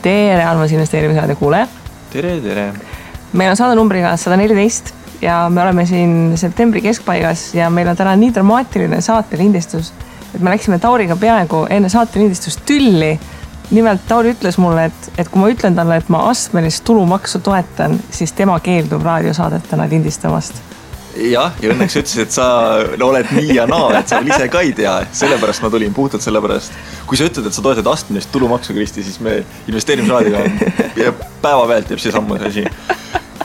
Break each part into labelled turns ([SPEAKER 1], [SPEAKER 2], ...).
[SPEAKER 1] Tere, armas investeerimisraadi kuulaja.
[SPEAKER 2] Tere.
[SPEAKER 1] Meil on saade numbriga 114 ja me oleme siin septembri keskpaigas ja meil on täna nii dramaatiline saatelindistus, et me läksime Tauriga peaaegu enne saatelindistust tülli. Nimelt Tauri ütles mulle, et kui ma ütlen talle, et ma astmelist tulumaksu toetan, siis tema keeldub raadiosaadetena lindistamast.
[SPEAKER 2] Ja õnneks ütles, et sa oled nii ja naa, et sa ise ka ei tea. Sellepärast ma tulin, puhtalt sellepärast. Kui sa ütled, et sa toetad astmelist tulumaksu, Kristi, siis me investeerimisraadiga päevapealt jääb see sammu asi.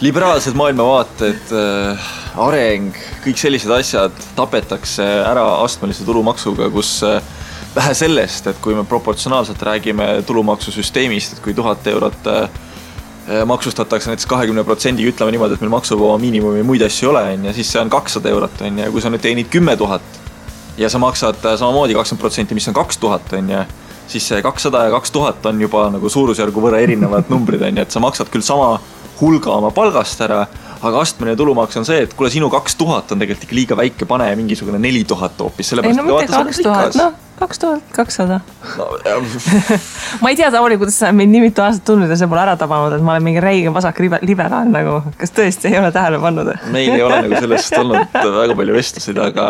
[SPEAKER 2] Liberaalsed maailmavaated, areng, kõik sellised asjad tapetakse ära astmelise tulumaksuga, kus vähe sellest, et kui me proportsionaalselt räägime tulumaksusüsteemist, et kui 1000 eurot maksustatakse näiteks 20%, ütleme niimoodi, et meil maksuvaba miinimumi muid asju ei ole, ja siis see on 200 eurot, ja kui sa nüüd teenid 10 000 ja sa maksad samamoodi 20%, mis on 2000, siis see 200 ja 2000 on juba nagu suurusjärgu võrra erinevad numbrid, et sa maksad küll sama hulga oma palgast ära, aga astmeline tulumaks on see, et kuule sinu 2000 on tegelikult ikka liiga väike, pane mingisugune 4000 hoopis.
[SPEAKER 1] Ei no mitte 2000, 2200. Ma ei tea, Tauri, kuidas sa meid nii mitu aastat tundnud ja see pole ära tabanud, et ma olen mingi räige vasak liberaal nagu. Kas tõesti ei ole tähele pannud?
[SPEAKER 2] Meil ei ole nagu sellest olnud väga palju vestlusid, aga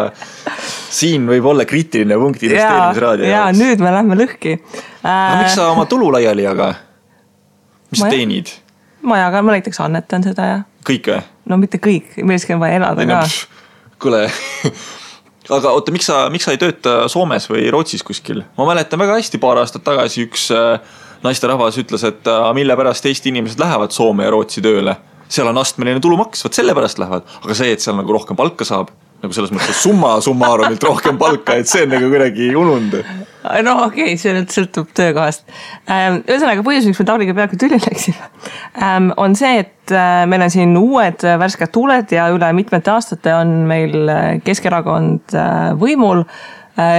[SPEAKER 2] siin võib olla kriitiline punkt investeerimisraadio.
[SPEAKER 1] Ja nüüd me lähme lõhki.
[SPEAKER 2] Miks sa oma tulu laiali jaga? Mis sa teenid?
[SPEAKER 1] Ma näiteks annetan seda ja...
[SPEAKER 2] Kõik või?
[SPEAKER 1] No mitte kõik, milleski on vaja elada ka.
[SPEAKER 2] Kuule... Aga oota, miks sa ei tööta Soomes või Rootsis kuskil? Ma mäletan väga hästi paar aastat tagasi üks naisterahvas ütles, et mille pärast Eesti inimesed lähevad Soome ja Rootsi tööle. Seal on astmeline tulumaks, võt selle pärast lähevad. Aga see, et seal nagu rohkem palka saab, nagu selles mõttes summarumilt rohkem palka, et see on nagu kuidagi unund.
[SPEAKER 1] No okei, see nüüd sõltub töökohast. Ühesõnaga põhjus, miks me Tauriga peaaegu tüli läksime, on see, et meil on siin uued värsked tuuled ja üle mitmete aastate on meil Keskerakond võimul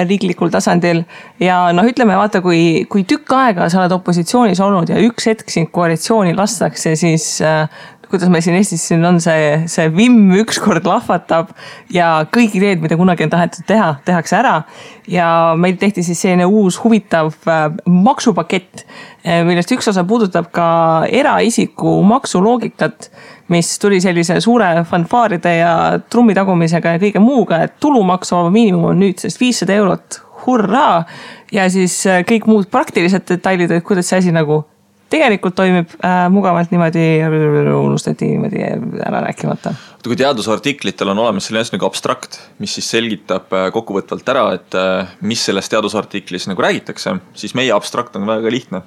[SPEAKER 1] riiklikul tasandil ja ütleme, vaata, kui tükk aega sa oled opositsioonis olnud ja üks hetk siin koalitsiooni lastakse, siis kuidas meil siin Eestis siin on see vimm ükskord lahvatab ja kõik ideed, mida kunagi on tahetud teha, tehakse ära ja meil tehti siis selline uus huvitav maksupakett, millest üks osa puudutab ka eraisiku maksuloogikat, mis tuli sellise suure fanfaaride ja trummitagumisega ja kõige muuga, et tulumaksuvaba miinimum on nüüd 500 eurot, hurraa, ja siis kõik muud praktilised detailid, et kuidas see asi nagu tegelikult toimib mugavalt niimoodi, unustati niimoodi ära rääkimata.
[SPEAKER 2] Kui teadusartiklitel on olemas selline nagu abstrakt, mis siis selgitab kokkuvõtvalt ära, et mis selles teadusartiklis nagu räägitakse, siis meie abstrakt on väga lihtne.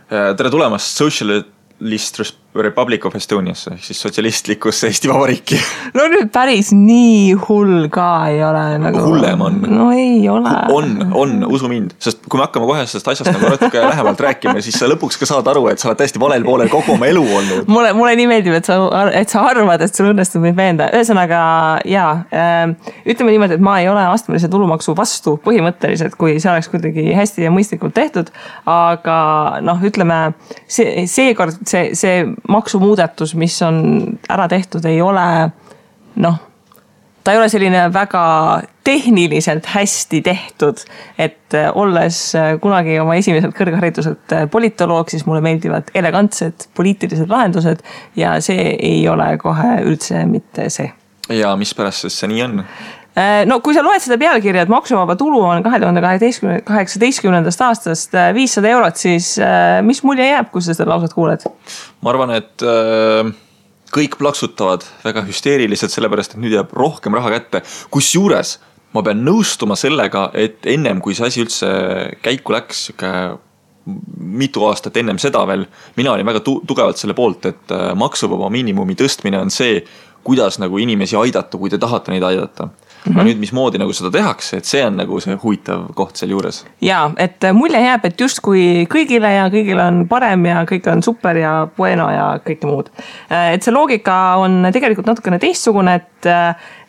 [SPEAKER 2] Tere tulemast Socialist Republic of Estoniasse, siis sotsialistlikusse Eesti Vabariiki.
[SPEAKER 1] No nüüd päris nii hull ka ei ole. Nagu...
[SPEAKER 2] Hullem on.
[SPEAKER 1] No ei ole.
[SPEAKER 2] On, usu mind. Sest kui me hakkame kohe sellest asjast nagu natuke lähemalt rääkima, siis sa lõpuks ka saad aru, et sa oled täiesti valel poolel kogu oma elu olnud.
[SPEAKER 1] Mulle nii meeldib, et sa arvad, et sul õnnestub meid veenda. Ühesõnaga, ütleme niimoodi, et ma ei ole astmelise tulumaksu vastu põhimõtteliselt, kui see oleks kuidagi hästi ja mõistlikult tehtud, aga ütleme, seekord see maksumuudatus, mis on ära tehtud, ei ole, ta ei ole selline väga tehniliselt hästi tehtud, et olles kunagi oma esimeselt kõrghariduselt politoloog, siis mulle meeldivad elegantsed poliitilised lahendused ja see ei ole kohe üldse mitte see.
[SPEAKER 2] Ja mis pärast see nii on?
[SPEAKER 1] No kui sa loed seda pealkirja, et maksuvaba tulu on 2018. aastast 500 eurot, siis mis mulje jääb, kui sa seda lausat kuuled?
[SPEAKER 2] Ma arvan, et kõik plaksutavad väga hüsteeriliselt, sellepärast, et nüüd jääb rohkem raha kätte. Kusjuures ma pean nõustuma sellega, et ennem kui see asi üldse käiku läks, mitu aastat ennem seda veel, mina olin väga tugevalt selle poolt, et maksuvaba miinimumi tõstmine on see, kuidas nagu inimesi aidata, kui te tahate neid aidata. Aga nüüd mismoodi nagu seda tehakse, et see on nagu see huvitav koht seal juures.
[SPEAKER 1] Jaa, et mulje jääb, et just kui kõigile ja kõigil on parem ja kõik on super ja bueno ja kõike muud. Et see loogika on tegelikult natukene teistsugune,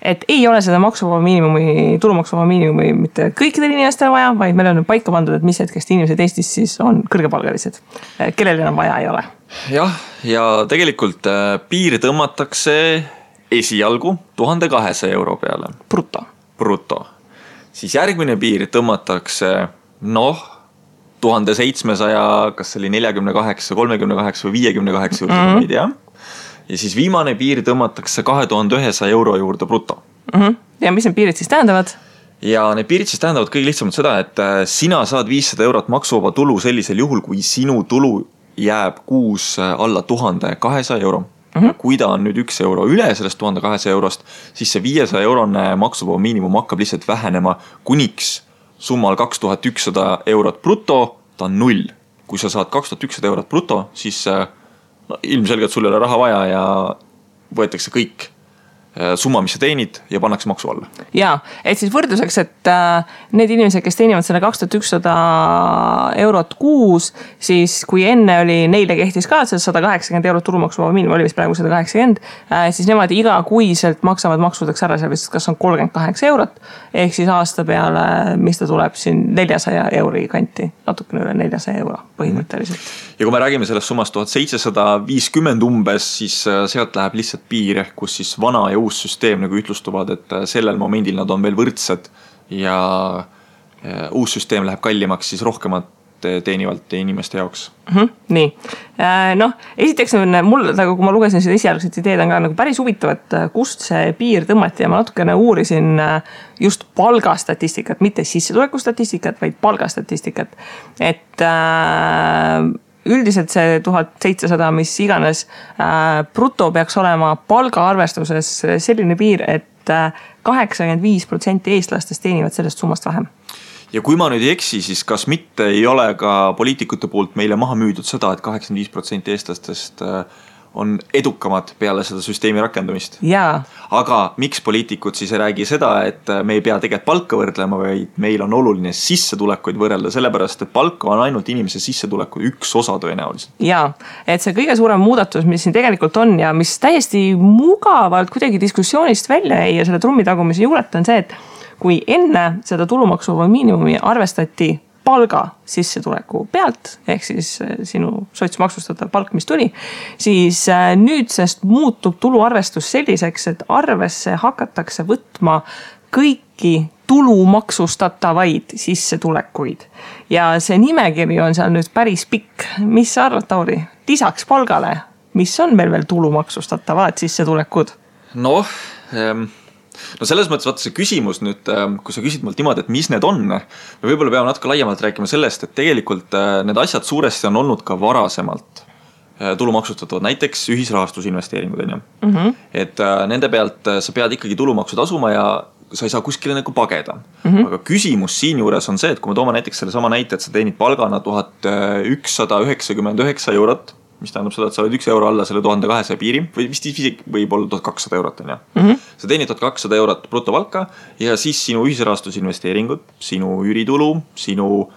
[SPEAKER 1] et ei ole seda tulumaksuvaba miinimumi mitte kõikidel inimestel vaja, vaid meil on paika pandud, et mis hetkest inimesed Eestis siis on kõrgepalgalised, kellel enam vaja ei ole.
[SPEAKER 2] Jah, ja tegelikult piir tõmmatakse esialgu 1200 euro peale.
[SPEAKER 1] Bruto.
[SPEAKER 2] Siis järgmine piir tõmmatakse 1700, kas see oli 48, 38 või 58 juurde, ma ei tea. Ja siis viimane piir tõmmatakse 2100 euro juurde bruto.
[SPEAKER 1] Ja mis need piirid siis tähendavad?
[SPEAKER 2] Ja need piirid siis tähendavad kõige lihtsamalt seda, et sina saad 500 eurot maksuvaba tulu sellisel juhul, kui sinu tulu jääb kuus alla 1200 euro. Kui ta on nüüd 1 euro üle sellest 1200 eurost, siis see 500 eurone maksuvaba miinimum hakkab lihtsalt vähenema kuniks summal 2100 eurot bruto, ta on 0. Kui sa saad 2100 eurot bruto, siis ilmselgelt sul ei ole raha vaja ja võetakse kõik summa, mis sa teenid ja pannakse maksu alla.
[SPEAKER 1] Jaa, et siis võrdluseks, et need inimesed, kes teenivad selle 2100 eurot kuus, siis kui enne oli neile kehtis ka 180 eurot tulumaksuvaba miinimum, oli vist praegu 180, siis nemad iga kuiselt maksavad maksudeks ära seal vist, kas on 38 eurot, ehk siis aasta peale, mis ta tuleb siin 400 euri kanti, natukene üle 400 euro põhimõtteliselt.
[SPEAKER 2] Ja kui me räägime sellest summast 1750 umbes, siis sealt läheb lihtsalt piir, kus siis vana ja uus süsteem nagu ütlustuvad, et sellel momendil nad on veel võrdsed ja uus süsteem läheb kallimaks siis rohkemat teenivalt inimeste jaoks.
[SPEAKER 1] Nii, noh, esiteks mul, nagu kui ma lugesin seda esialgset ideed, on ka nagu päris huvitav, et kust see piir tõmmati ja ma natukene uurisin just palgastatistikat, mitte sissetulekustatistikat, vaid palgastatistikat, et üldiselt see 1700, mis iganes bruto peaks olema palgaarvestuses selline piir, et 85% eestlastest teenivad sellest summast vähem.
[SPEAKER 2] Ja kui ma nüüd ei eksi, siis kas mitte ei ole ka poliitikute poolt meile maha müüdud seda, et 85% eestlastest on edukamad peale seda süsteemi rakendamist.
[SPEAKER 1] Jaa.
[SPEAKER 2] Aga miks poliitikud siis ei räägi seda, et me ei pea tegelikult palka võrdlema, vaid meil on oluline sissetulekuid võrrelda, sellepärast, et palka on ainult inimese sissetuleku üks osa tõenäoliselt.
[SPEAKER 1] Jaa, et see kõige suurem muudatus, mis siin tegelikult on ja mis täiesti mugavalt kuidagi diskussioonist välja jäi ja selle trummitagumise juuret on see, et kui enne seda tulumaksuvaba miinimumi arvestati palga sissetuleku pealt, ehk siis sinu sotsmaksustatav palk, mis tuli, siis nüüdsest muutub tuluarvestus selliseks, et arvesse hakatakse võtma kõiki tulumaksustatavaid sissetulekuid. Ja see nimekiri on seal nüüd päris pikk. Mis sa arvad, Tauri? Lisaks palgale, mis on meil veel tulumaksustavad sissetulekud?
[SPEAKER 2] No selles mõttes vaata see küsimus nüüd, kui sa küsid mult niimoodi, et mis need on, me võib-olla peame natuke laiemalt rääkima sellest, et tegelikult need asjad suuresti on olnud ka varasemalt tulumaksustatavad, näiteks ühisrahastusinvesteeringud. Et nende pealt sa pead ikkagi tulumaksu tasuma ja sa ei saa kuskile nagu pageda. Aga küsimus siin juures on see, et kui me toome näiteks selle sama näite, et sa teenid palgana 1199 eurot, mis tähendab seda, et sa oled 1 euro alla selle 1200 piiri või vist võib olla 1200 eurot. Sa teenid 1200 eurot brutopalka ja siis sinu ühisrahastusinvesteeringud, sinu üüritulu, sinu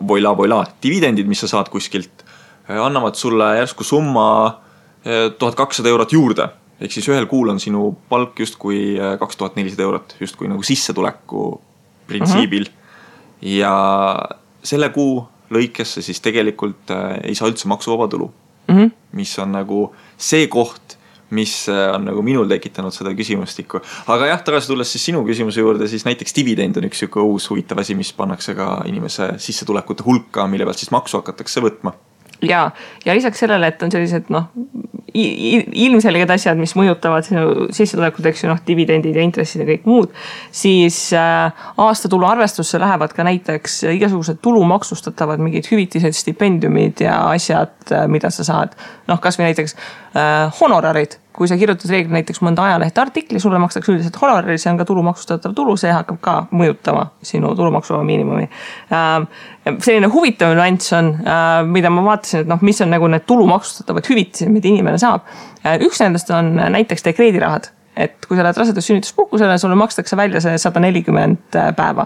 [SPEAKER 2] voila dividendid, mis sa saad kuskilt, annavad sulle järsku summa 1200 eurot juurde. Ehk siis ühel kuul on sinu palk justkui 2400 eurot, justkui nagu sissetuleku printsiibil. Ja selle kuu lõikesse siis tegelikult ei saa üldse maksuvaba tulu. Mis on nagu see koht, mis on nagu minul tekitanud seda küsimustikku. Aga jah, tagasi tulles siis sinu küsimuse juurde, siis näiteks dividend on üks uus huvitav asi, mis pannakse ka inimese sissetulekute hulka, mille pealt siis maksu hakatakse võtma.
[SPEAKER 1] Ja lisaks sellele, et on sellised ilmselged asjad, mis mõjutavad sinu sissetulekut, eks ju, dividendid ja intressid ja kõik muud, siis aastatulu arvestusse lähevad ka näiteks igasugused tulumaksustatavad mingid hüvitised, stipendiumid ja asjad, mida sa saad. Kas või näiteks honorarid. Kui sa kirjutad reegli näiteks mõnda ajalehte artikli, sulle makstakse üldiselt honorari, see on ka tulumaksustatav tulu, see hakkab ka mõjutama sinu tulumaksuvaba miinimumi. Selline huvitav nüanss on, mida ma vaatasin, et mis on nagu need tulumaksustatavad hüvitised, mida inimene saab. Üks nendest on näiteks dekreedirahad. Et kui sa lähed rasedus sünnituspuhkusele, sulle makstakse välja see 140 päeva.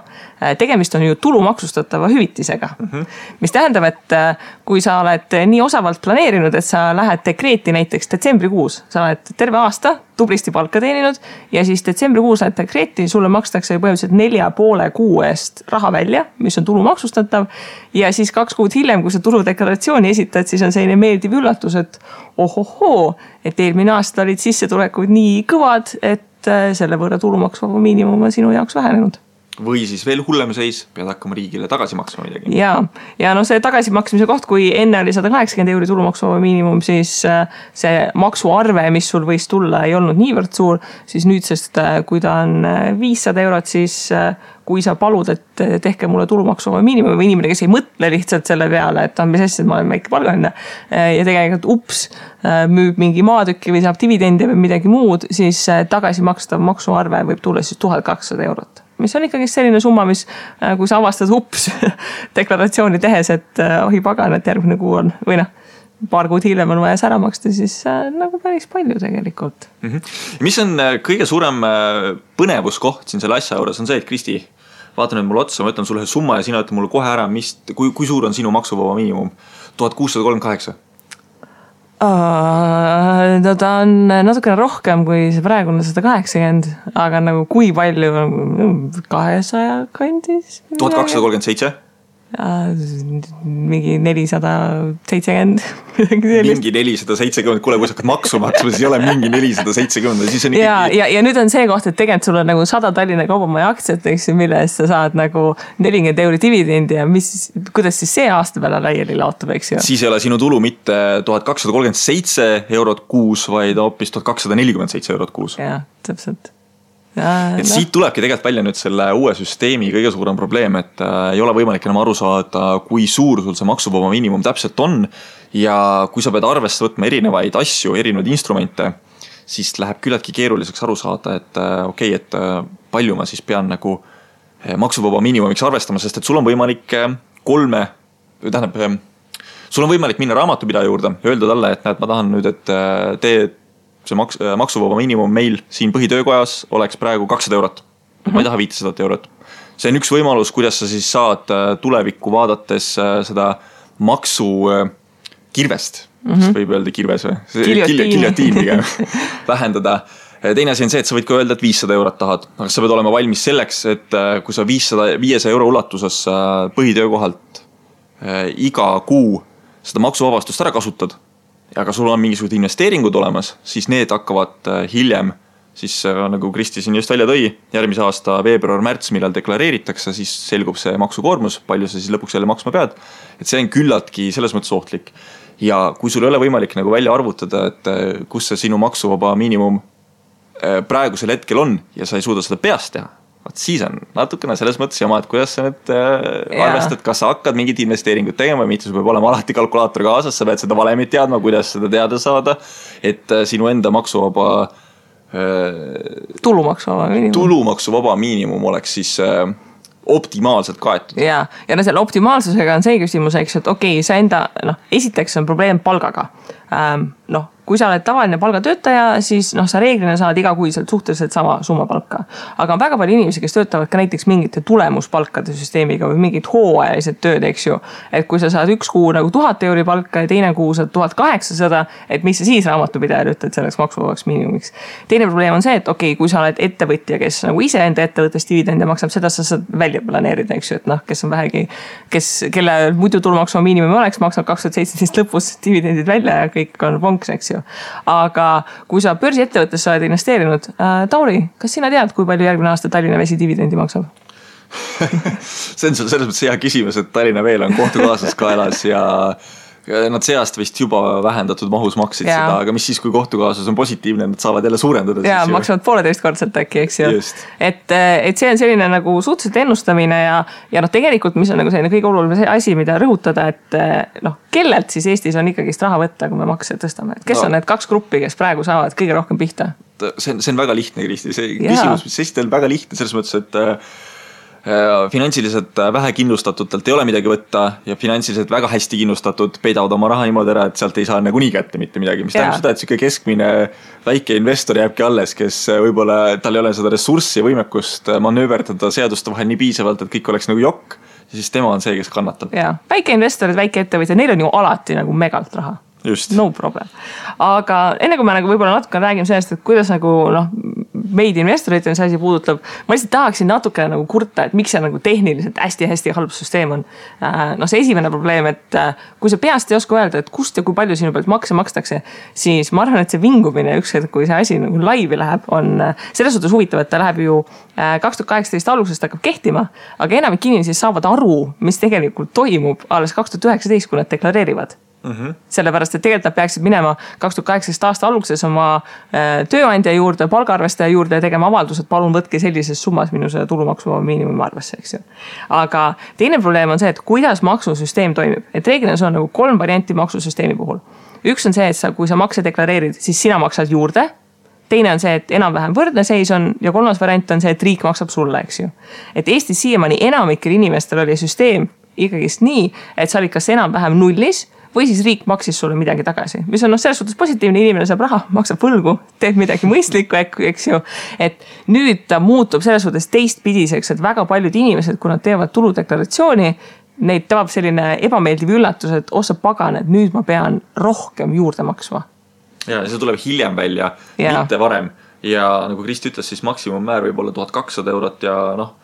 [SPEAKER 1] Tegemist on ju tulumaksustatava hüvitisega. Mis tähendab, et kui sa oled nii osavalt planeerinud, et sa lähed dekreeti näiteks detsembrikuus, sa oled terve aasta tublisti palka teeninud ja siis detsembrikuus lähed dekreeti, sulle makstakse põhimõtteliselt 4,5 kuu eest raha välja, mis on tulumaksustatav ja siis 2 kuud hiljem, kui sa tuludeklaratsiooni esitad, siis on selline meeldiv üllatus, et ohohoo, et eelmine aasta olid sissetulekud nii kõvad, et selle võrra tulumaksuvaba miinimum on sinu jaoks vähenenud.
[SPEAKER 2] või siis veel hullem seis, pead hakkama riigile tagasi maksma midagi.
[SPEAKER 1] Ja no see tagasimaksmise koht, kui enne oli 180 € tulumaksuvaba miinimum, siis see maksuarve, mis sul võis tulla, ei olnud niivõrd suur, siis nüüdsest, kui ta on 500 €, siis kui sa palud, et tehke mulle tulumaksuvaba miinimum või inimene, kes ei mõtle lihtsalt selle peale, et mis asja, ma olen väike palgaline ja tegelikult müüb mingi maatükki või saab dividendi või midagi muud, siis tagasi makstav maksuarve võib tulla siis 1200 €. Mis on ikkagi selline summa, mis kui sa avastad deklaratsiooni tehes, et ohi pagan, et järgmine kuu on või paar kuud hiljem on vaja ära maksta, siis nagu päris palju tegelikult.
[SPEAKER 2] Mis on kõige suurem põnevuskoht siin selle asja juures on see, et Kristi, vaata nüüd mulle otsa, ma ütlen sulle summa ja sina ütled mulle kohe ära, kui suur on sinu maksuvaba miinimum? 1638.
[SPEAKER 1] No ta on natukene rohkem kui see praegune 180, aga nagu kui palju 200 kandis?
[SPEAKER 2] 1237?
[SPEAKER 1] Mingi 470.
[SPEAKER 2] Mingi 470, kuule, kui sa hakkad maksu maksma, siis ei ole mingi 470. Siis on ikkagi...
[SPEAKER 1] ja nüüd on see koht, et tegelikult sul on nagu 100 Tallinna Kaubamaja aktsiat, mille eest sa saad nagu 40 € dividendi ja kuidas siis see aasta peale laiali laotub, eks ju?
[SPEAKER 2] Siis ei ole sinu tulu mitte 1237 € kuus, vaid hoopis 1247 € kuus.
[SPEAKER 1] Jah, täpselt.
[SPEAKER 2] Siit tulebki tegelikult välja nüüd selle uue süsteemi kõige suurem probleem, et ei ole võimalik enam aru saada, kui suur sul see maksuvaba miinimum täpselt on ja kui sa pead arvesse võtma erinevaid asju, erinevaid instrumente, siis läheb küllaltki keeruliseks aru saada, et palju ma siis pean nagu maksuvaba miinimumiks arvestama, sest et sul on võimalik sul on võimalik minna raamatupidaja juurde ja öelda talle, et näed, ma tahan nüüd, et see maksuvaba miinimum meil siin põhitöökojas oleks praegu 200 €. Ma ei taha 500 €. See on üks võimalus, kuidas sa siis saad tulevikku vaadates seda maksu kirvest, võib öelda kirves või? Giljotiin pigem vähendada. Teine asi on see, et sa võid ka öelda, et 500 € tahad, aga sa pead olema valmis selleks, et kui sa 500 € ulatuses põhitöökohalt iga kuu seda maksuvabastust ära kasutad, aga sul on mingisugused investeeringud olemas, siis need hakkavad hiljem, siis nagu Kristi siin just välja tõi, järgmise aasta veebruar-märts, millal deklareeritakse, siis selgub see maksukoormus, palju sa siis lõpuks jälle maksma pead. Et see on küllaltki selles mõttes ohtlik. Ja kui sul ei ole võimalik nagu välja arvutada, et kus see sinu maksuvaba miinimum praegusel hetkel on ja sa ei suuda seda peast teha, siis on natukene selles mõttes jama, et kuidas sa nüüd arvestad, kas sa hakkad mingid investeeringud tegema või mitte, sul peab olema alati kalkulaator kaasas, sa pead seda valemit teadma, kuidas seda teada saada, et sinu enda maksuvaba tulumaksuvaba miinimum oleks siis optimaalselt kaetud.
[SPEAKER 1] Ja selle optimaalsusega on see küsimus, eks, et okei, sa enda, esiteks on probleem palgaga. Kui sa oled tavaline palgatöötaja, siis sa reeglina saad igakuiselt suhteliselt sama summa palka. Aga on väga palju inimesi, kes töötavad ka näiteks mingite tulemuspalkade süsteemiga või mingid hooajalised tööd, eks ju. Et kui sa saad üks kuu nagu 1000 € palka ja teine kuu saad 1800, et mis sa siis raamatupidajal ütled selleks maksuvabaks miinimumiks. Teine probleem on see, et okei, kui sa oled ettevõtja, kes nagu ise enda ettevõttes dividende maksab, seda sa saad välja planeerida, eks ju, et kes on vähegi, kelle muidu tulumaksuvaba miinimum oleks, maksab 2017 lõpus dividendid välja ja kõik on vonks, eks ju. Aga kui sa börsiettevõttesse oled investeerinud, Tauri, kas sina tead, kui palju järgmine aasta Tallinna Vesi dividendi maksab?
[SPEAKER 2] See on selles mõttes hea küsimus, et Tallinna Veel on kohtukaaslas kaelas ja nad see aasta vist juba vähendatud mahus maksid seda, aga mis siis, kui kohtukaasus on positiivne, nad saavad jälle suurendada.
[SPEAKER 1] Ja maksavad 1,5-kordsalt äkki, eks ju. Et see on selline nagu suhteliselt ennustamine ja tegelikult, mis on nagu selline kõige oluline asi, mida rõhutada, et kellelt siis Eestis on ikkagist raha võtta, kui me makse tõstame. Kes on need kaks gruppi, kes praegu saavad kõige rohkem pihta?
[SPEAKER 2] See on väga lihtne, Kristi. See küsimus, mis esitel on väga lihtne, selles mõttes, et finantsiliselt vähe kindlustatutelt ei ole midagi võtta ja finantsiliselt väga hästi kindlustatud peidavad oma raha niimoodi ära, et sealt ei saa nagu nii kätte mitte midagi, mis tähendab seda, et selline keskmine väike investor jääbki alles, kes võib-olla tal ei ole seda ressurssi ja võimekust manööverdada seaduste vahel nii piisavalt, et kõik oleks nagu jokk ja siis tema on see, kes kannatab.
[SPEAKER 1] Väike investorid, väike ettevõtja, neil on ju alati nagu megalt raha.
[SPEAKER 2] Just.
[SPEAKER 1] No problem. Aga enne kui me nagu võib-olla natuke räägime sellest, et kuidas nagu meid investoreid see asi puudutab, ma lihtsalt tahaksin natukene nagu kurta, et miks see nagu tehniliselt hästi-hästi halb süsteem on. No see esimene probleem, et kui sa peast ei oska öelda, et kust ja kui palju sinu pealt makse makstakse, siis ma arvan, et see vingumine ükskord, kui see asi nagu laivi läheb, on selles suhtes huvitav, et ta läheb ju 2018 algusest hakkab kehtima, aga enamik inimesi saavad aru, mis tegelikult toimub alles 2019, kui nad deklareerivad. Sellepärast, et tegelikult nad peaksid minema 2018 aasta alguses oma tööandja juurde, palgaarvestaja juurde ja tegema avaldused, palun võtke sellises summas minu see tulumaksu miinimumi arvesse, eks ju. Aga teine probleem on see, et kuidas maksusüsteem toimib. Et reeglina see on nagu 3 varianti maksusüsteemi puhul. Üks on see, et kui sa makse deklareerid, siis sina maksad juurde. Teine on see, et enam-vähem võrdne seis on ja 3. variant on see, et riik maksab sulle, eks ju. Et Eestis siiamaani enamikel inimestel oli süsteem ikkagist nii, et sa olid kas enam-vähem nullis või siis riik maksis sulle midagi tagasi, mis on selles suhtes positiivne, inimene saab raha, maksab võlgu, teeb midagi mõistlikku, eks ju. Et nüüd ta muutub selles suhtes teistpidiseks, et väga paljud inimesed, kui nad teevad tuludeklaratsiooni, neid tabab selline ebameeldiv üllatus, et osa pagan, et nüüd ma pean rohkem juurde maksma.
[SPEAKER 2] Ja see tuleb hiljem välja, mitte varem. Ja nagu Kristi ütles, siis maksimummäär võib olla 1200 eurot ja noh,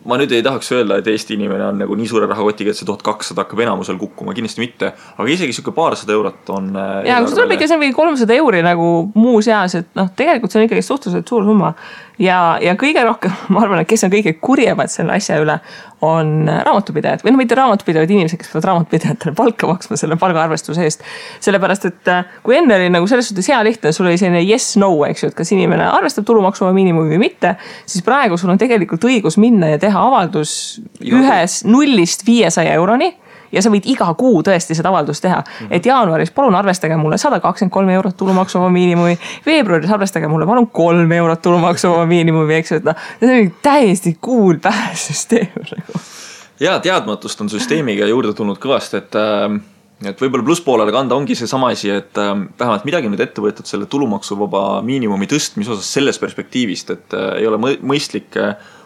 [SPEAKER 2] ma nüüd ei tahaks öelda, et Eesti inimene on nagu nii suure rahakotiga, et see 1200 hakkab enamusel kukkuma, kindlasti mitte, aga isegi siuke paarsada eurot on... Ja, kui see tuleb ikka, see on 300 euri nagu muu seas, et noh, tegelikult see on ikkagi suhteliselt suur summa ja kõige rohkem, ma arvan, et kes on kõige kurjemad selle asja üle, on raamatupidajad või no mitte raamatupidajad inimesed, kes peavad raamatupidajatele palka maksma selle palgaarvestuse eest. Sellepärast, et kui enne oli nagu selles suhtes hea lihtne, sul oli selline yes-no, eks ju, et kas inimene arvestab tulumaksu miinimumi või mitte, siis praegu sul on tegelikult õigus minna ja teha avaldus ühes 0-500 euroni ja sa võid iga kuu tõesti seda avaldust teha. Et jaanuaris palun arvestage mulle 123 eurot tulumaksuvaba miinimumi, veebruaris arvestage mulle palun 3 eurot tulumaksuvaba miinimumi, eks ju, et see on täiesti cool päässüsteem. Ja teadmatust on süsteemiga juurde tulnud kõvasti, et võib-olla plusspoolele kanda ongi see sama asi, et vähemalt midagi nüüd ette võetud selle tulumaksuvaba miinimumi tõstmise osas selles perspektiivist, et ei ole mõistlik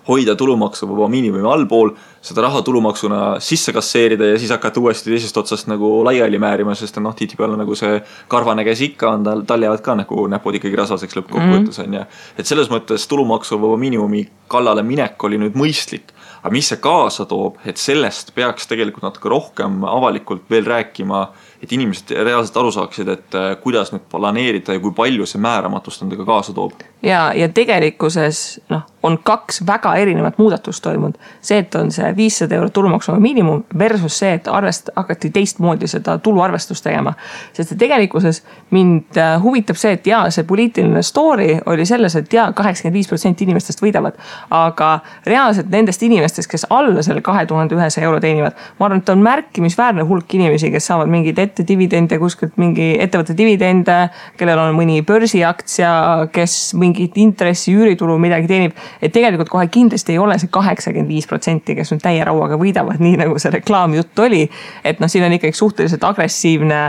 [SPEAKER 2] hoida tulumaksuvaba miinimumi allpool, seda raha tulumaksuna sisse kasseerida ja siis hakata uuesti teisest otsast nagu laiali määrima, sest noh, tihtipeale nagu see karvane käes ikka on, tal jäävad ka nagu näpud ikkagi rasvaseks lõppkokkuvõttes on ja et selles mõttes tulumaksuvaba miinimumi kallale minek oli nüüd mõistlik, aga mis see kaasa toob, et sellest peaks tegelikult natuke rohkem avalikult veel rääkima, et inimesed reaalselt aru saaksid, et kuidas nüüd planeerida ja kui palju see määramatust endaga kaasa toob.
[SPEAKER 1] Ja tegelikkuses on 2 väga erinevat muudatust toimunud. See, et on see 500 eurot tulumaksuvaba miinimum versus see, et hakati teistmoodi seda tuluarvestust tegema. Sest tegelikkuses mind huvitab see, et see poliitiline story oli selles, et 85% inimestest võidavad, aga reaalselt nendest inimestest, kes alla selle 2100 euro teenivad, ma arvan, et on märkimisväärne hulk inimesi, kes saavad mingid ette dividende, kuskilt mingi ettevõtte dividende, kellel on mõni börsiaktsia, kes mingit intressi, üüritulu midagi teenib, et tegelikult kohe kindlasti ei ole see 85%, kes nüüd täie rauaga võidavad, nii nagu see reklaamjutt oli, et siin on ikkagi suhteliselt agressiivne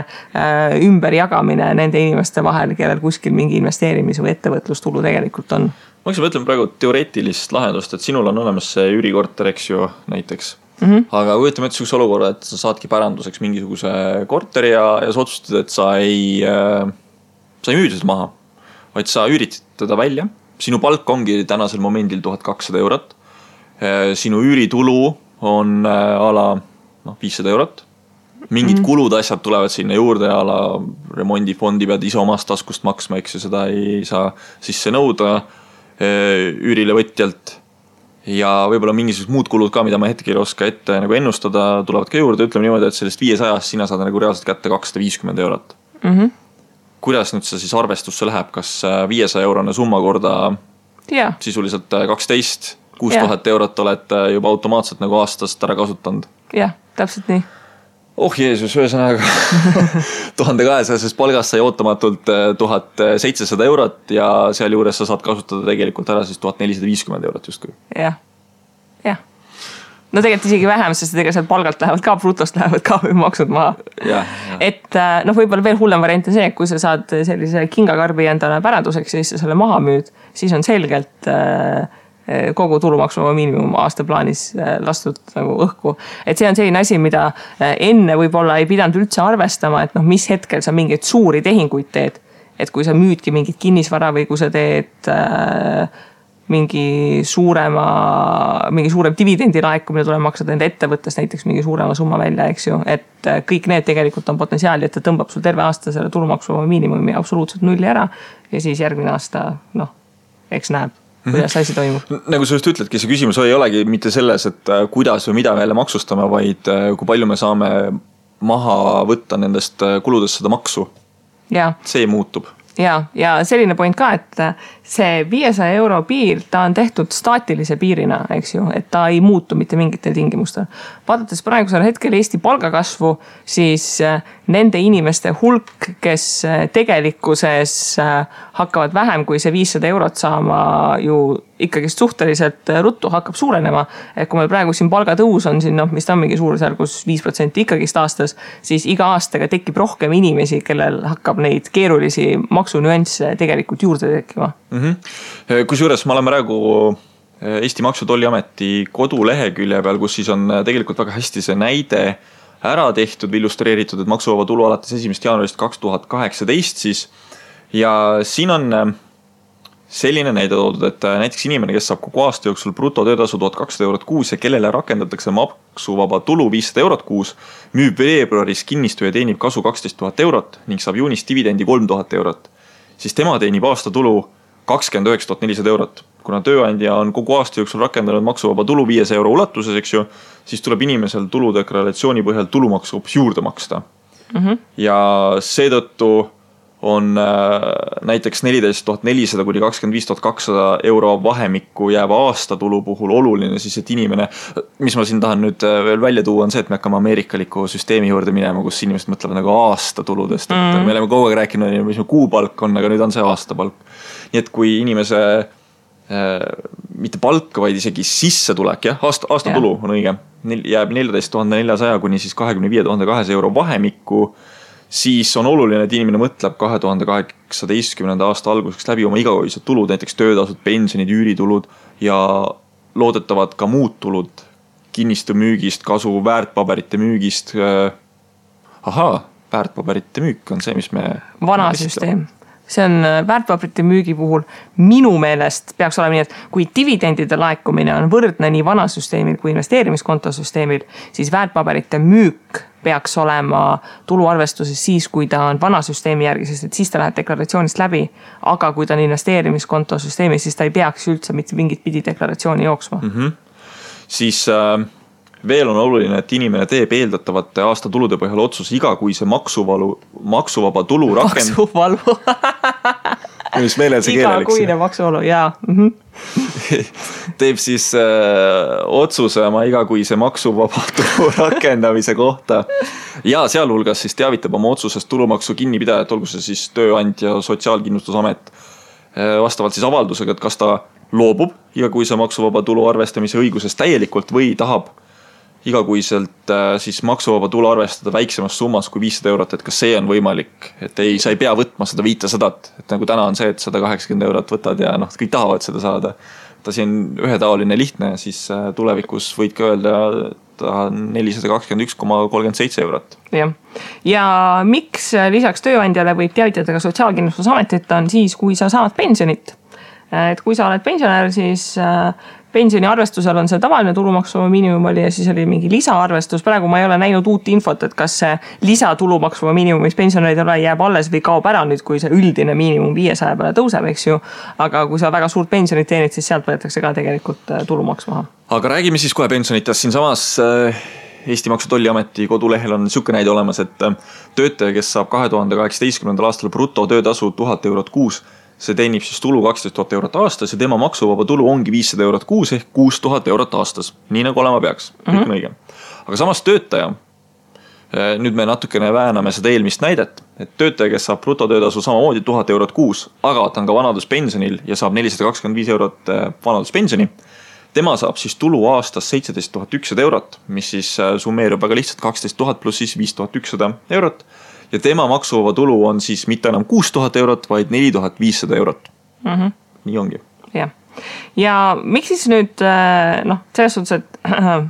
[SPEAKER 1] ümberjagamine nende inimeste vahel, kellel kuskil mingi investeerimis- või ettevõtlustulu tegelikult on.
[SPEAKER 2] Ma mõtlen praegu teoreetilist lahendust, et sinul on olemas see üürikorter, eks ju, näiteks. Aga kujutame ette sihukese olukorra, et sa saadki päranduseks mingisuguse korteri ja sa otsustad, et sa ei müüdi seda maha, vaid sa üüritid teda välja. Sinu palk ongi tänasel momendil 1200 eurot. Sinu üüritulu on ala 500 eurot. Mingid kulud asjad tulevad sinna juurde ala remondifondi pead ise omast taskust maksma, eks ju, seda ei saa sisse nõuda üürile võtjalt. Ja võib-olla mingisugused muud kulud ka, mida ma hetkel ei oska ette nagu ennustada, tulevad ka juurde, ütleme niimoodi, et sellest 500 sina saad nagu reaalselt kätte 250 eurot. Kuidas nüüd see siis arvestusse läheb, kas 500 eurone summa korda sisuliselt 12, 6000 eurot oled juba automaatselt nagu aastast ära kasutanud?
[SPEAKER 1] Jah, täpselt nii.
[SPEAKER 2] Oh Jeesus, ühesõnaga 1200 palgast sai ootamatult 1700 eurot ja seal juures sa saad kasutada tegelikult ära siis 1450 eurot justkui.
[SPEAKER 1] Jah. No tegelikult isegi vähem, sest tegelikult seal palgalt lähevad ka, brutost lähevad ka maksud maha. Et võib-olla veel hullem variant on see, et kui sa saad sellise kingakarbi endale päranduseks ja siis sa selle maha müüd, siis on selgelt kogu tulumaksuvaba miinimum aastaplaanis lastud nagu õhku. Et see on selline asi, mida enne võib-olla ei pidanud üldse arvestama, et mis hetkel sa mingeid suuri tehinguid teed. et kui sa müüdki mingit kinnisvara või kui sa teed mingi suurem dividendi laekumine tuleb maksada enda ettevõttes näiteks mingi suurema summa välja, eks ju, et kõik need tegelikult on potentsiaali, et ta tõmbab sul terve aasta selle tulumaksu miinimumi absoluutselt nulli ära ja siis järgmine aasta, eks näeb, kuidas asi toimub.
[SPEAKER 2] Nagu sa just ütledki, see küsimus ei olegi mitte selles, et kuidas või mida me jälle maksustame, vaid kui palju me saame maha võtta nendest kuludest seda maksu.
[SPEAKER 1] Ja.
[SPEAKER 2] See muutub.
[SPEAKER 1] Ja selline point ka, et see 500 euro piir, ta on tehtud staatilise piirina, eks ju, et ta ei muutu mitte mingitel tingimustel. Vaadates praegusel hetkel Eesti palgakasvu, siis nende inimeste hulk, kes tegelikkuses hakkavad vähem kui see 500 eurot saama ju ikkagi suhteliselt ruttu hakkab suurenema. Et kui meil praegu siin palgatõus on siin, mis ta on mingi suurusjärgus 5% ikkagist aastas, siis iga aastaga tekib rohkem inimesi, kellel hakkab neid keerulisi maksunüansse tegelikult juurde tekkima.
[SPEAKER 2] Kusjuures ma olen praegu Eesti Maksu- ja Tolliameti kodulehekülje peal, kus siis on tegelikult väga hästi see näide ära tehtud või illustreeritud, et maksuvaba tulu alates 1. jaanuarist 2018 siis. Ja siin on selline näide toodud, et näiteks inimene, kes saab kogu aasta jooksul brutotöötasu 1200 eurot kuus ja kellele rakendatakse maksuvaba tulu 500 eurot kuus, müüb veebruaris kinnistu ja teenib kasu 12 000 eurot ning saab juunis dividendi 3000 eurot, siis tema teenib aasta tulu 29 400 eurot. Kuna tööandja on kogu aasta jooksul rakendanud maksuvaba tulu 500 euro ulatuses, eks ju, siis tuleb inimesel tuludeklaratsiooni põhjal tulumaksu hoopis juurde maksta. Ja seetõttu on näiteks 14 400 kuni 25 200 euro vahemikku jääva aasta tulu puhul oluline siis, et inimene, mis ma siin tahan nüüd veel välja tuua, on see, et me hakkame ameerikaliku süsteemi juurde minema, kus inimesed mõtlevad nagu aasta tuludest. Et me oleme kogu aeg rääkinud, mis kuupalk on, aga nüüd on see aastapalk. Nii et kui inimese mitte palk, vaid isegi sissetulek, aasta tulu on õige, jääb 14 400 kuni siis 25 200 euro vahemikku, siis on oluline, et inimene mõtleb 2018. aasta alguseks läbi oma igakuised tulud, näiteks töötasud, pensionid, üüritulud ja loodetavad ka muud tulud kinnistu müügist, kasu väärtpaberite müügist. Väärtpaberite müük on see, mis me...
[SPEAKER 1] Vana süsteem. See on väärtpaberite müügi puhul minu meelest peaks olema nii, et kui dividendide laekumine on võrdne nii vana süsteemil kui investeerimiskontosüsteemil, siis väärtpaberite müük peaks olema tuluarvestuses siis, kui ta on vana süsteemi järgi, sest et siis ta läheb deklaratsioonist läbi, aga kui ta on investeerimiskontosüsteemi, siis ta ei peaks üldse mitte mingit pidi deklaratsiooni jooksma.
[SPEAKER 2] Siis veel on oluline, et inimene teeb eeldatavate aasta tulude põhjal otsus iga kui see maksuvaba tulu
[SPEAKER 1] Maksuvalu.
[SPEAKER 2] Mis meelel see keeleliks.
[SPEAKER 1] Iga kuine maksuvalu, jaa.
[SPEAKER 2] Teeb siis otsuse oma iga kui see maksuvaba tulu rakendamise kohta. Ja sealhulgas siis teavitab oma otsusest tulumaksu kinnipidajat, olgu see siis tööandja, Sotsiaalkindlustusamet, vastavalt siis avaldusega, et kas ta loobub iga kui see maksuvaba tulu arvestamise õigusest täielikult või tahab igakuiselt siis maksuvaba tulu arvestada väiksemas summas kui 500 eurot, et kas see on võimalik, et sa ei pea võtma seda 500, et nagu täna on see, et 180 eurot võtad ja kõik tahavad seda saada. Ta siin ühetaoline lihtne, siis tulevikus võid ka öelda 421,37 eurot.
[SPEAKER 1] Ja miks lisaks tööandjale võib teavitada ka Sotsiaalkindlustusametit on siis, kui sa saad pensionit. Et kui sa oled pensionär, siis pensioni arvestusel on see tavaline tulumaksu miinimum oli ja siis oli mingi lisaarvestus. Praegu ma ei ole näinud uut infot, et kas see lisatulumaksu miinimum, mis pensionäride ole jääb alles või kaob ära nüüd, kui see üldine miinimum 500 peale tõuseb, eks ju. Aga kui sa väga suurt pensionit teenid, siis sealt võetakse ka tegelikult tulumaks maha.
[SPEAKER 2] Aga räägime siis kohe pensionitest. Siin samas Eesti Maksu- ja Tolliameti kodulehel on siuke näide olemas, et töötaja, kes saab 2018. aastal bruto töötasu 1000 eurot kuus, see teenib siis tulu 12 000 eurot aastas ja tema maksuvaba tulu ongi 500 eurot kuus ehk 6000 eurot aastas. Nii nagu olema peaks. Kõik on õige. Aga samas töötaja, nüüd me natukene vääname seda eelmist näidet, et töötaja, kes saab brutotöötasu samamoodi 1000 eurot kuus, aga ta on ka vanaduspensionil ja saab 425 eurot vanaduspensioni, tema saab siis tulu aastas 17 100 eurot, mis siis summeerub väga lihtsalt 12 000 pluss siis 5100 eurot. Ja tema maksuvaba tulu on siis mitte enam 6000 eurot, vaid 4500 eurot. Nii ongi.
[SPEAKER 1] Jah. ja miks siis nüüd selles suhtes, et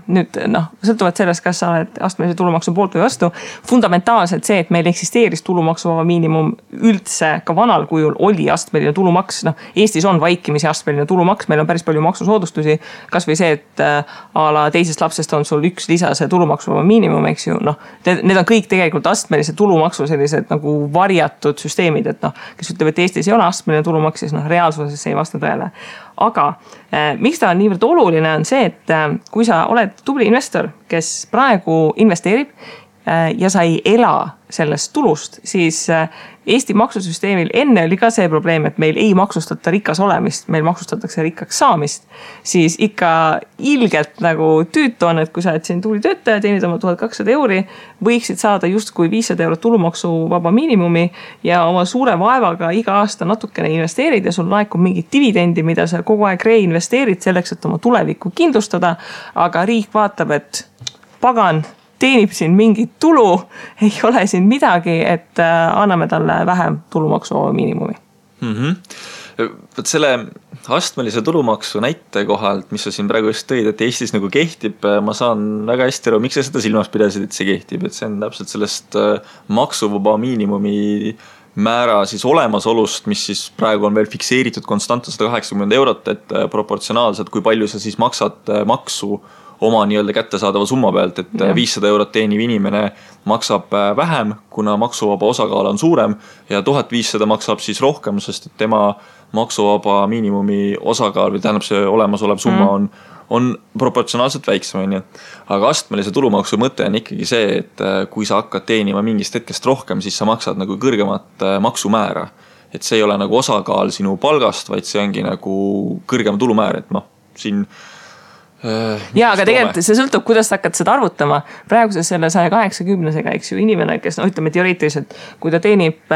[SPEAKER 1] nüüd sõltuvalt sellest, kas sa oled astmelise tulumaksu poolt või vastu, fundamentaalselt see, et meil eksisteeris tulumaksuvaba miinimum üldse ka vanal kujul oli astmeline tulumaks, Eestis on vaikimisi astmeline tulumaks, meil on päris palju maksusoodustusi, kas või see, et a la teisest lapsest on sul üks lisase tulumaksuvaba miinimum, eks ju, need on kõik tegelikult astmelise tulumaksu sellised nagu varjatud süsteemid, et kes ütleb, et Eestis ei ole astmeline tulumaks, siis reaalsuses ei vasta tõele. Aga miks ta on niivõrd oluline on see, et kui sa oled tubli investor, kes praegu investeerib ja sa ei ela sellest tulust, siis Eesti maksusüsteemil enne oli ka see probleem, et meil ei maksustata rikas olemist, meil maksustatakse rikkaks saamist, siis ikka ilgelt nagu tüütu on, et kui sa oled siin tubli töötaja, teenid oma 1200 €, võiksid saada justkui 500 € tulumaksuvaba miinimumi ja oma suure vaevaga iga aasta natukene investeerid ja sul laekub mingit dividendi, mida sa kogu aeg reinvesteerid selleks, et oma tulevikku kindlustada, aga riik vaatab, et pagan, teenib siin mingit tulu, ei ole siin midagi, et anname talle vähem tulumaksuvaba miinimumi.
[SPEAKER 2] Võt selle astmelise tulumaksu näite kohalt, mis sa siin praegu just tõid, et Eestis nagu kehtib, ma saan väga hästi aru, miks sa seda silmas pidasid, et see kehtib, et see on täpselt sellest maksuvaba miinimumi määra siis olemasolust, mis siis praegu on veel fikseeritud konstantne 180 €, et proportsionaalselt, kui palju sa siis maksad maksu oma nii-öelda kättesaadava summa pealt, et 500 € teeniv inimene maksab vähem, kuna maksuvaba osakaal on suurem ja 1500 maksab siis rohkem, sest et tema maksuvaba miinimumi osakaal või tähendab see olemasolev summa on proportsionaalselt väiksem, on ju. Aga astmelise tulumaksu mõte on ikkagi see, et kui sa hakkad teenima mingist hetkest rohkem, siis sa maksad nagu kõrgemat maksumäära. Et see ei ole nagu osakaal sinu palgast, vaid see ongi nagu kõrgem tulumäär, et siin
[SPEAKER 1] aga tegelikult see sõltub, kuidas sa hakkad seda arvutama. Praeguse selle 180-sega, eks ju, inimene, kes ütleme teoreetiliselt, kui ta teenib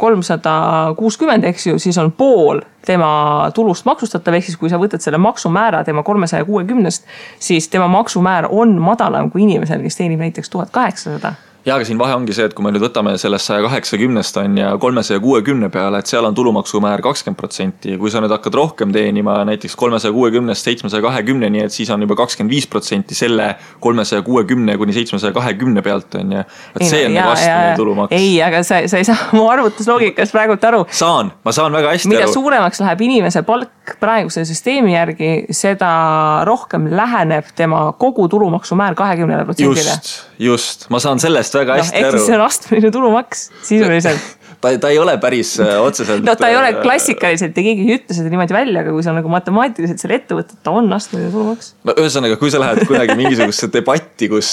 [SPEAKER 1] 360, eks ju, siis on pool tema tulust maksustatav, ehk siis kui sa võtad selle maksumäära tema 360-st, siis tema maksumäär on madalam kui inimesel, kes teenib näiteks 1800.
[SPEAKER 2] Ja, aga siin vahe ongi see, et kui me nüüd võtame sellest 180 on ja 360 peale, et seal on tulumaksumäär 20%. Kui sa nüüd hakkad rohkem teenima näiteks 360 720, nii et siis on juba 25% selle 360 kuni 720 pealt on ja see on nagu astmeline tulumaks.
[SPEAKER 1] Ei, aga sa ei saa mu arvutusloogikast praegult aru.
[SPEAKER 2] Ma saan väga hästi
[SPEAKER 1] mida aru. Mida suuremaks läheb inimese palk praeguse süsteemi järgi, seda rohkem läheneb tema kogu tulumaksumäär 20%-le.
[SPEAKER 2] Just. Ma saan sellest väga hästi aru.
[SPEAKER 1] Ehk siis see on astmeline tulumaks sisuliselt.
[SPEAKER 2] Ta ei ole päris otseselt.
[SPEAKER 1] Ta ei ole klassikaliselt ja keegi ei ütle seda niimoodi välja, aga kui sa nagu matemaatiliselt selle ette võtad, ta on astmeline tulumaks.
[SPEAKER 2] Ühesõnaga, kui sa lähed kunagi mingisugusesse debatti, kus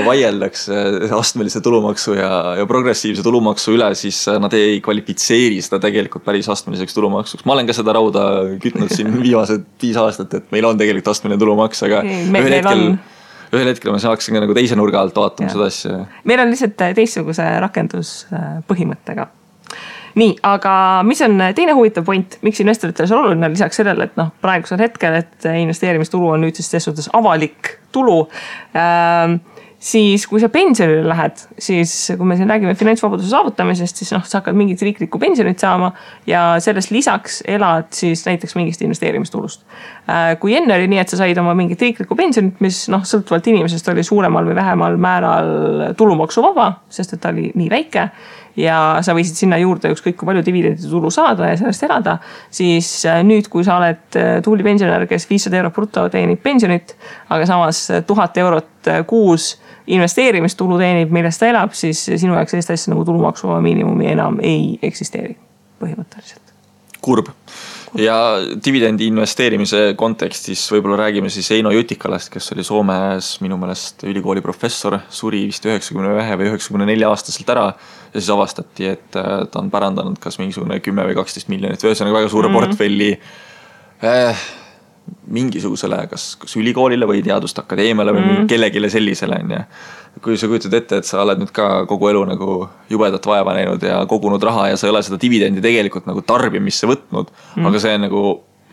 [SPEAKER 2] vaieldakse astmelise tulumaksu ja progressiivse tulumaksu üle, siis nad ei kvalifitseeri seda tegelikult päris astmeliseks tulumaksuks. Ma olen ka seda rauda kütnud siin viimased 5 aastat, et meil on tegelikult astmeline tulumaks, aga ühel hetkel ma saaksin ka nagu teise nurga alt vaatama seda asja.
[SPEAKER 1] Meil on lihtsalt teistsuguse rakenduspõhimõttega. Nii, aga mis on teine huvitav point, miks investoritel on oluline lisaks sellele, et praegusel hetkel, et investeerimistulu on nüüd siis suhtes avalik tulu, siis kui sa pensionile lähed, siis kui me siin räägime finantsvabaduse saavutamisest, siis sa hakkad mingit riiklikku pensionit saama ja sellest lisaks elad siis näiteks mingist investeerimistulust. Kui enne oli nii, et sa said oma mingit riiklikku pensionit, mis sõltuvalt inimesest oli suuremal või vähemal määral tulumaksuvaba, sest et ta oli nii väike ja sa võisid sinna juurde ükskõik kui palju dividendide tulu saada ja sellest elada, siis nüüd, kui sa oled tubli pensionär, kes 500 € bruto teenib pensionit, aga samas 1000 € kuus investeerimistulu teenib, millest ta elab, siis sinu jaoks sellist asja nagu tulumaksuvaba miinimumi enam ei eksisteeri põhimõtteliselt.
[SPEAKER 2] Kurb. Ja dividendi investeerimise kontekstis võib-olla räägime siis Eino Jutikalast, kes oli Soomes minu meelest ülikooli professor, suri vist 91 või 94 aastaselt ära ja siis avastati, et ta on pärandanud kas mingisugune 10 või 12 miljonit või ühesõnaga väga suure portfelli mingisugusele kas ülikoolile või teaduste akadeemiale või kellegile sellisele. Ja kui sa kujutad ette, et sa oled nüüd ka kogu elu nagu jubedat vaeva näinud ja kogunud raha ja sa ei ole seda dividendi tegelikult nagu tarbimisse võtnud, aga see on nagu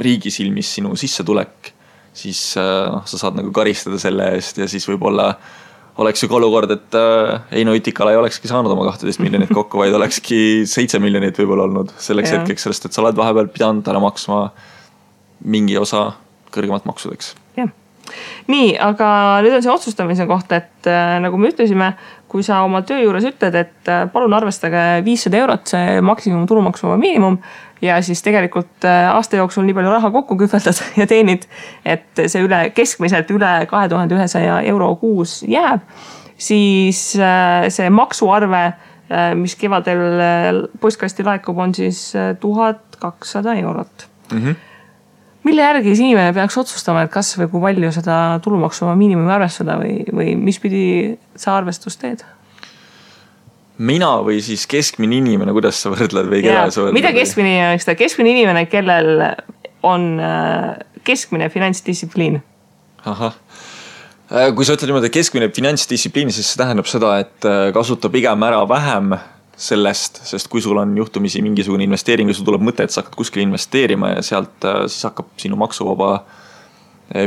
[SPEAKER 2] riigi silmis sinu sissetulek, siis sa saad nagu karistada selle eest ja siis võib-olla oleks ju ka olukord, et Eino Jutikala ei olekski saanud oma 12 miljonit kokku, vaid olekski 7 miljonit võib-olla olnud selleks hetkeks, sellest, et sa oled vahepeal pidanud ära maksma mingi osa kõrgemat maksudeks.
[SPEAKER 1] Jah. Nii, aga nüüd on see otsustamise koht, et nagu me ütlesime, kui sa oma töö juures ütled, et palun arvestage 500 eurot see maksimum tulumaksuvaba miinimum ja siis tegelikult aasta jooksul nii palju raha kokku kühveldad ja teenid, et see keskmiselt üle 2100 euro kuus jääb, siis see maksuarve, mis kevadel postkasti laekub, on siis 1200 eurot. Mille järgi inimene peaks otsustama, et kas või kui palju seda tulumaksuvaba miinimumi arvestada või mis pidi sa arvestust teed?
[SPEAKER 2] Mina või siis keskmine inimene, kuidas sa võrdled või keda sa võrdled?
[SPEAKER 1] Mida keskmine inimene? Keskmine inimene, kellel on keskmine finantsdistsipliin.
[SPEAKER 2] Ahah. Kui sa ütled niimoodi keskmine finantsdistsipliin, siis see tähendab seda, et kasuta pigem ära vähem sellest, sest kui sul on juhtumisi mingisugune investeering ja sul tuleb mõte, et sa hakkad kuskil investeerima ja sealt siis hakkab sinu maksuvaba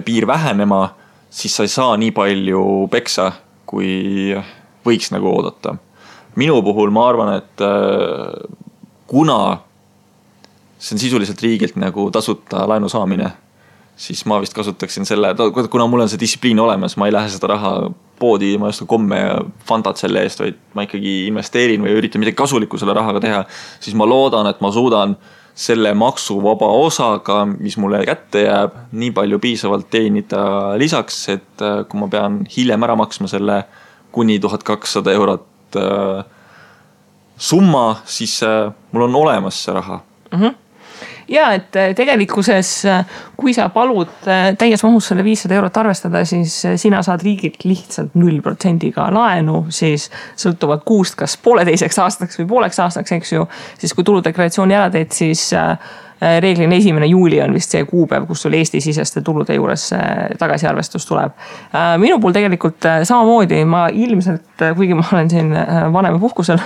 [SPEAKER 2] piir vähenema, siis sa ei saa nii palju peksa, kui võiks nagu oodata. Minu puhul ma arvan, et kuna see on sisuliselt riigilt nagu tasuta laenu saamine, siis ma vist kasutaksin selle, kuna mul on see distsipliin olemas, ma ei lähe seda raha poodi, ma ei osta komme ja fantat selle eest, vaid ma ikkagi investeerin või üritan midagi kasulikku selle rahaga teha, siis ma loodan, et ma suudan selle maksuvaba osaga, mis mulle kätte jääb, nii palju piisavalt teenida lisaks, et kui ma pean hiljem ära maksma selle kuni 1200 eurot summa, siis mul on olemas see raha.
[SPEAKER 1] Ja, et tegelikkuses, kui sa palud täies mahus selle 500 eurot arvestada, siis sina saad riigilt lihtsalt 0% laenu, siis sõltuvad kuust, kas 1,5 aastaks või 0,5 aastaks, eks ju, siis kui tuludeklaratsiooni ära teed, siis reeglina 1. juuli on vist see kuupäev, kus sul Eesti-siseste tulude juures tagasiarvestus tuleb. Minu puhul tegelikult samamoodi, ma ilmselt, kuigi ma olen siin vanema puhkusel,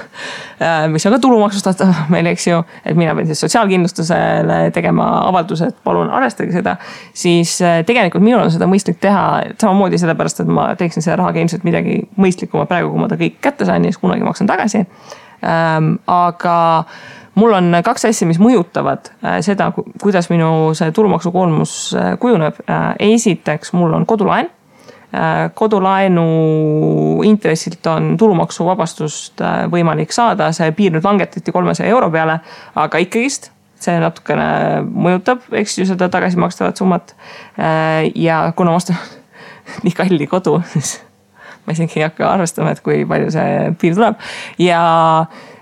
[SPEAKER 1] mis on ka tulumaksustatav meil, eks ju, et mina pean siis sotsiaalkindlustusele tegema avalduse, et palun arvestage seda, siis tegelikult minul on seda mõistlik teha samamoodi sellepärast, et ma teeksin selle rahaga ilmselt midagi mõistlikuma praegu, kui ma ta kõik kätte sain ja siis kunagi maksan tagasi. Aga mul on 2 asja, mis mõjutavad seda, kuidas minu see tulumaksukoormus kujuneb. Esiteks, mul on kodulaen. Kodulaenu intressilt on tulumaksuvabastust võimalik saada. See piir nüüd langetati 300 euro peale, aga ikkagist see natukene mõjutab, eks ju, seda tagasimakstavat summat. Ja kuna ma ostan nii kalli kodu, siis ma isegi ei hakka arvestama, et kui palju see piir tuleb. Ja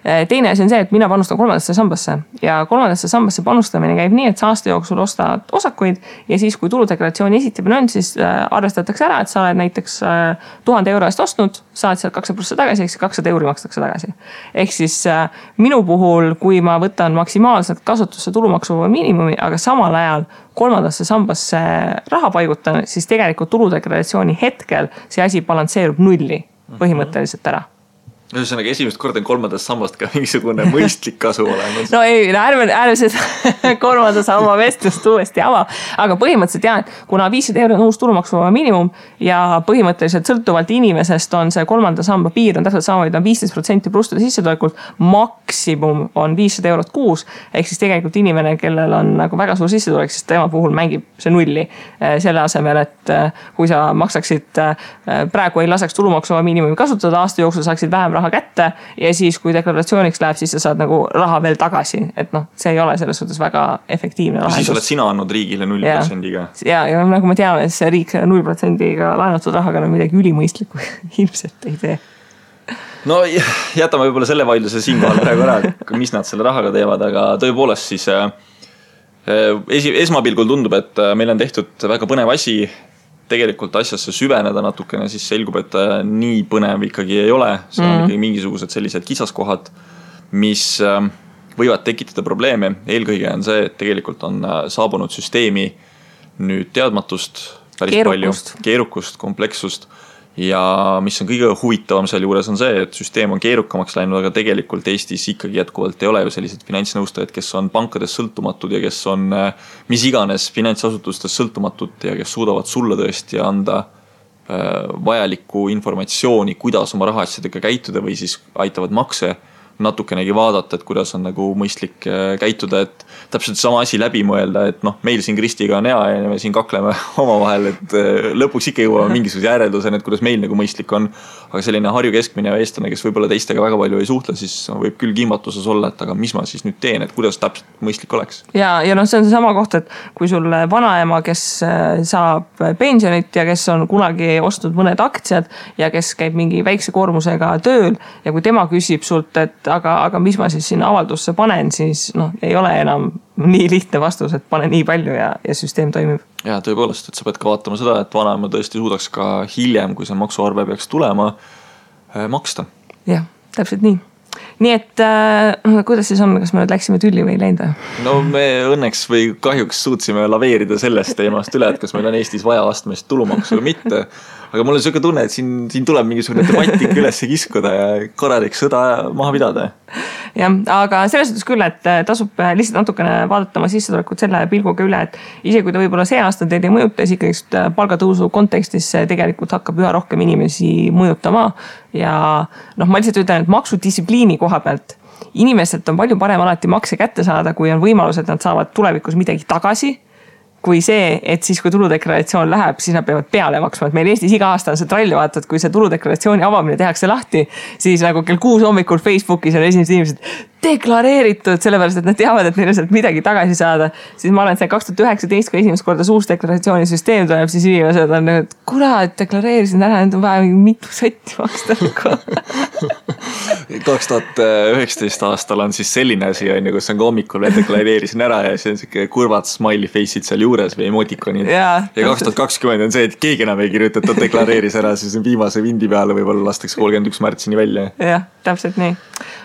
[SPEAKER 1] teine asi on see, et mina panustan 3. sambasse ja 3. sambasse panustamine käib nii, et sa aasta jooksul ostad osakuid ja siis, kui tuludeklaratsiooni esitamine on, siis arvestatakse ära, et sa oled näiteks 1000 euro eest ostnud, saad sealt 2% tagasi, ehk 200 euri makstakse tagasi. Ehk siis minu puhul, kui ma võtan maksimaalselt kasutusse tulumaksuvaba miinimumi, aga samal ajal 3. sambasse raha paigutan, siis tegelikult tuludeklaratsiooni hetkel see asi balansseerub nulli põhimõtteliselt ära.
[SPEAKER 2] Ühesõnaga esimest korda on 3. sammast ka mingisugune mõistlik kasu olemas.
[SPEAKER 1] No ei, ärme seda 3. samba vestlust uuesti ava. Aga põhimõtteliselt jah, et kuna 500 euro on uus tulumaksuvaba miinimum ja põhimõtteliselt sõltuvalt inimesest on see 3. samba piir on täpselt sama, et on 15% plustude sissetulekult, maksimum on 500 eurot kuus, ehk siis tegelikult inimene, kellel on nagu väga suur sissetulek, siis tema puhul mängib see nulli selle asemel, et kui sa maksaksid praegu ei laseks tulumaksuvaba miinimumi kasutada, aasta jooksul saaksid vähem raha kätte ja siis, kui deklaratsiooniks läheb, siis sa saad nagu raha veel tagasi. Et see ei ole selles suhtes väga efektiivne lahendus.
[SPEAKER 2] Siis oled sina andnud riigile 0%-ga.
[SPEAKER 1] Ja nagu me teame, see riik 0%-ga laenatud rahaga on midagi ülimõistlikku ilmselt ei tee.
[SPEAKER 2] No jätame võib-olla selle vaidluse siinkohal praegu ära, mis nad selle rahaga teevad, aga tõepoolest siis esmapilgul tundub, et meil on tehtud väga põnev asi, tegelikult asjasse süveneda natukene, siis selgub, et nii põnev ikkagi ei ole. See on ikkagi mingisugused sellised kitsaskohad, mis võivad tekitada probleeme. Eelkõige on see, et tegelikult on saabunud süsteemi nüüd teadmatust päris palju, keerukust, komplekssust. Ja mis on kõige huvitavam seal juures on see, et süsteem on keerukamaks läinud, aga tegelikult Eestis ikkagi jätkuvalt ei ole ju sellised finantsnõustajad, kes on pankades sõltumatud ja kes on mis iganes finantsasutustes sõltumatud ja kes suudavad sulle tõesti anda vajalikku informatsiooni, kuidas oma rahaasjadega käituda või siis aitavad makse natukenegi vaadata, et kuidas on nagu mõistlik käituda, et täpselt sama asi läbi mõelda, et noh, meil siin Kristiga on hea ja me siin kakleme omavahel, et lõpuks ikka jõuame mingisuguse järelduseni, et kuidas meil nagu mõistlik on. Aga selline Harju keskmine eestlane, kes võib-olla teistega väga palju ei suhtle, siis võib küll kimbatuses olla, et aga mis ma siis nüüd teen, et kuidas täpselt mõistlik oleks.
[SPEAKER 1] Ja noh, see on see sama koht, et kui sul vanaema, kes saab pensionit ja kes on kunagi ostnud mõned aktsiad ja kes käib mingi väikse koormusega tööl ja kui tema küsib sult, et aga mis ma siis sinna avaldusse panen, siis noh, ei ole enam nii lihtne vastus, et pane nii palju ja süsteem toimib.
[SPEAKER 2] Ja tõepoolest, et sa pead ka vaatama seda, et vanaema tõesti suudaks ka hiljem, kui see maksuarve peaks tulema, maksta.
[SPEAKER 1] Jah, täpselt nii. Nii et kuidas siis on, kas me nüüd läksime tülli või ei läinud?
[SPEAKER 2] No me õnneks või kahjuks suutsime laveerida sellest teemast üle, et kas meil on Eestis vaja astmelist tulumaksu või mitte. Aga mul on selline tunne, et siin tuleb mingisugune debatik üles kiskuda ja korralik sõda maha pidada.
[SPEAKER 1] Jah, aga selles suhtes küll, et tasub lihtsalt natukene vaadata oma sissetulekut selle pilguga üle, et isegi kui ta võib-olla see aasta teid ei mõjuta, siis ikkagi palgatõusu kontekstis tegelikult hakkab üha rohkem inimesi mõjutama. Ja noh, ma lihtsalt ütlen, et maksudistsipliini koha pealt inimestelt on palju parem alati makse kätte saada, kui on võimalus, et nad saavad tulevikus midagi tagasi. Kui see, et siis kui tuludeklaratsioon läheb, siis nad peavad peale maksma, et meil Eestis iga aasta on see trall, vaata, et kui see tuludeklaratsiooni avamine tehakse lahti, siis nagu kell 6 hommikul Facebookis on esimesed inimesed deklareeritud, sellepärast, et nad teavad, et neil sealt midagi tagasi saada. Siis ma olen see 2019, kui esimest korda uus deklaratsioonisüsteem tuleb, siis inimesed on nüüd, kurat, deklareerisin ära, nüüd on vaja mitu sotti maksta.
[SPEAKER 2] 2019 aastal on siis selline asi, kus on ka hommikul deklareerisin ära ja siis on siuke kurvad smiley face'id seal juures või emotikonid. Ja 2020 on see, et keegi enam ei kirjuta, et ta deklareeris ära, siis viimase vindi peale võib-olla lastakse 31 märtsini välja.
[SPEAKER 1] Jah, täpselt nii.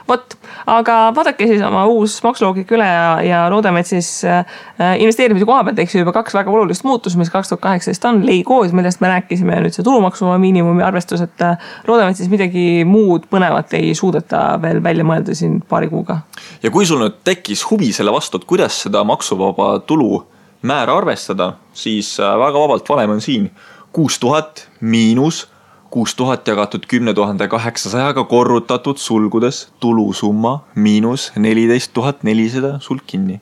[SPEAKER 1] Vot, aga vaadake siis oma uus maksuloogik üle ja loodame, et siis investeerimise koha pealt juba 2 väga olulist muutus, mis 2018 on leikoos, millest me rääkisime nüüd see tulumaksu miinimumi arvestus, et loodame, et siis midagi muud põnevat ei suudeta veel välja mõelda siin paari kuuga.
[SPEAKER 2] Ja kui sul nüüd tekkis huvi selle vastu, et kuidas seda maksuvaba tulu määra arvestada, siis väga vabalt valem on siin 6000 miinus 6000 jagatud 10 800 korrutatud sulgudes tulusumma miinus 14 400 sulg kinni.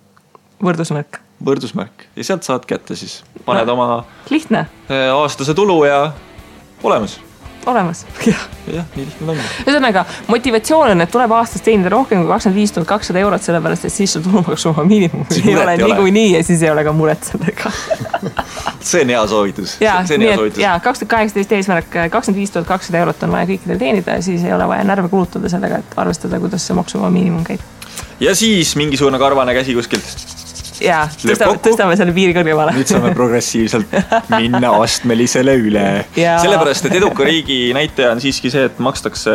[SPEAKER 1] Võrdusmärk.
[SPEAKER 2] Võrdusmärk. Ja sealt saad kätte siis. Paned oma
[SPEAKER 1] lihtne.
[SPEAKER 2] Aastase tulu ja olemas.
[SPEAKER 1] Olemas.
[SPEAKER 2] Jah, nii lihtne on.
[SPEAKER 1] Ühesõnaga, motivatsioon on, et tuleb aastas teenida rohkem kui 25 200 eurot, sellepärast, et siis sul tulumaksuvaba miinimum ei ole niikuinii ja siis ei ole ka muret sellega.
[SPEAKER 2] See on hea soovitus.
[SPEAKER 1] Ja 2018 eesmärk 25 200 eurot on vaja kõikidel teenida ja siis ei ole vaja närve kulutada sellega, et arvestada, kuidas see maksuvaba miinimum käib.
[SPEAKER 2] Ja siis mingisugune karvane käsi kuskilt.
[SPEAKER 1] Ja, tõstame selle piiri kõrgemale.
[SPEAKER 2] Nüüd saame progressiivselt minna astmelisele üle. Sellepärast, et eduka riigi näitaja on siiski see, et makstakse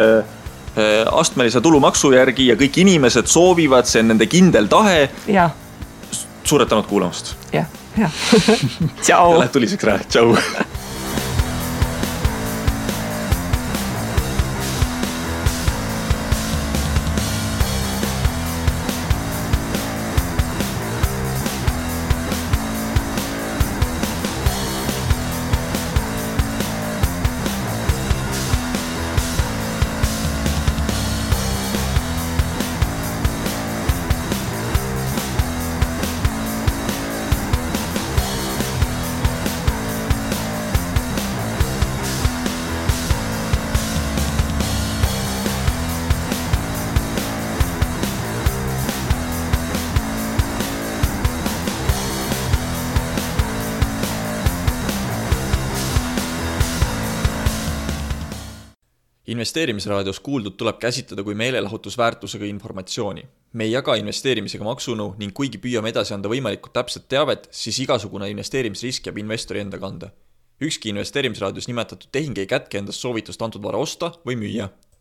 [SPEAKER 2] astmelise tulumaksu järgi ja kõik inimesed soovivad, see on nende kindel tahe.
[SPEAKER 1] Ja.
[SPEAKER 2] Suured tänud kuulamast.
[SPEAKER 1] Ja. Tšau.
[SPEAKER 2] Lähed tuliseks ära. Tšau. Investeerimisraadios kuuldud tuleb käsitleda kui meelelahutusväärtusega informatsiooni. Me ei jaga investeerimisega maksunõu ning kuigi püüame edasi anda võimalikult täpset teavet, siis igasugune investeerimisrisk jääb investori enda kanda. Ükski investeerimisraadios nimetatud tehing ei kätke endast soovitust antud vara osta või müüa.